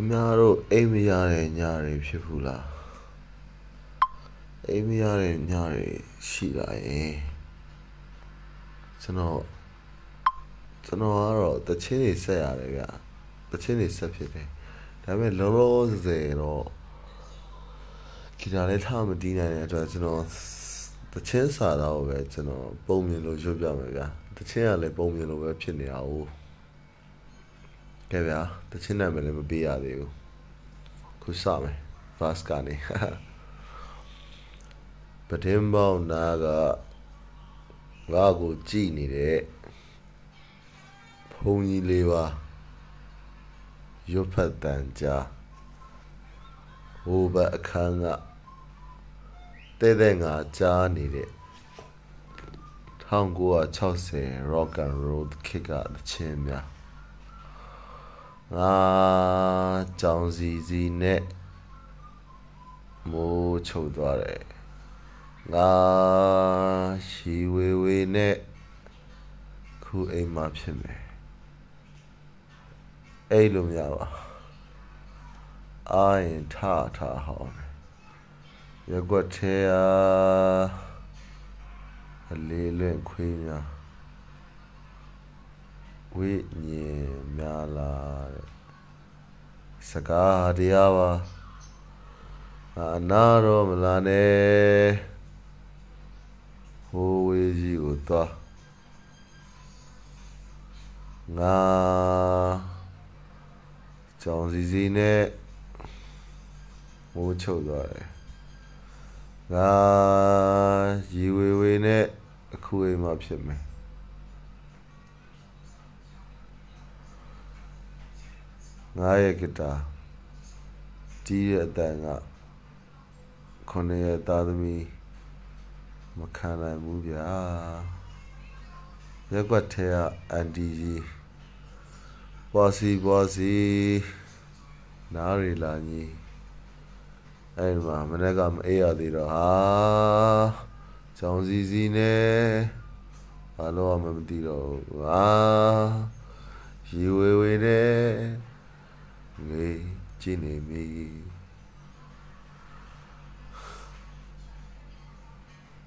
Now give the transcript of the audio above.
များတို့အိမ်မရတဲ့ညတွေဖြစ်ဘူးလားအိမ်မရတဲ့ညတွေရှိလာရင်ကျွန်တော်ကတော့တချင်းတွေဆက်ရတယ်ဗျတချင်းတွေဆက်ဖြစ်တယ်ဒါပေမဲ့လောလောဆယ်တော့ဂီတာလေးထားမတီးနိုင်တဲ့အတွက်ကျွန်တော်တချင်းစာတော့ပဲကျွန်တော်ပုံမြင်လို့ရွတ်ပြမယ်ဗျတချင်းကလည်းပုံမြင်လို့ပဲဖြစ်နေတာ哦ကဲဗျာတချင်းနာမည်လည်းမပေးရသေးဘူးခုစမယ် fast ကနေပတင်ပေါင်းနာကငါ့ကိုကြည်နေတဲ့ဘုံကြီးလေးပါရွတ်ဖတ်တန်ကြားဟိုဘက်အခန်းကတဲ့ငါကြားနေတဲ့1960 rock and roll ခေတ်ကတချင်းများငါကြောင်စီနဲ့မိုးချုပ်သွားတယ်ငါရှီဝေနဲ့ခုအိမ်မှာဖြစ်မယ်အဲ့လိုများပါအာရင်ထဟောင်းရက်ွက်သေးအလေးလွင့်ခွေးများဝိညာဉ်များလာတဲ့စကားတရားပါအနာတော့မလာနဲ့ဟိုဝေးကြီးကိုသွားငါကြောင်စီနဲ့မိုးချုပ်သွားတယ်ငါရီဝေနဲ့အခုအိမ်မှာဖြစ်မယ်ငါရဲ့ဂီတာတီးတဲ့အတန်က9ရက်သားသမီးမခံနိုင်ဘူးဗျာရက်ွက်ထဲကအန်တီကြီးပွားစီနားရီလာကြီးအဲ့မှာမနေ့ကမအေးရသေးတော့ဟာကြောင်စီနဲ့ဘာလို့မှမသိတော့ဟာရီဝေနဲ့ငေးကြည့်နေပြီ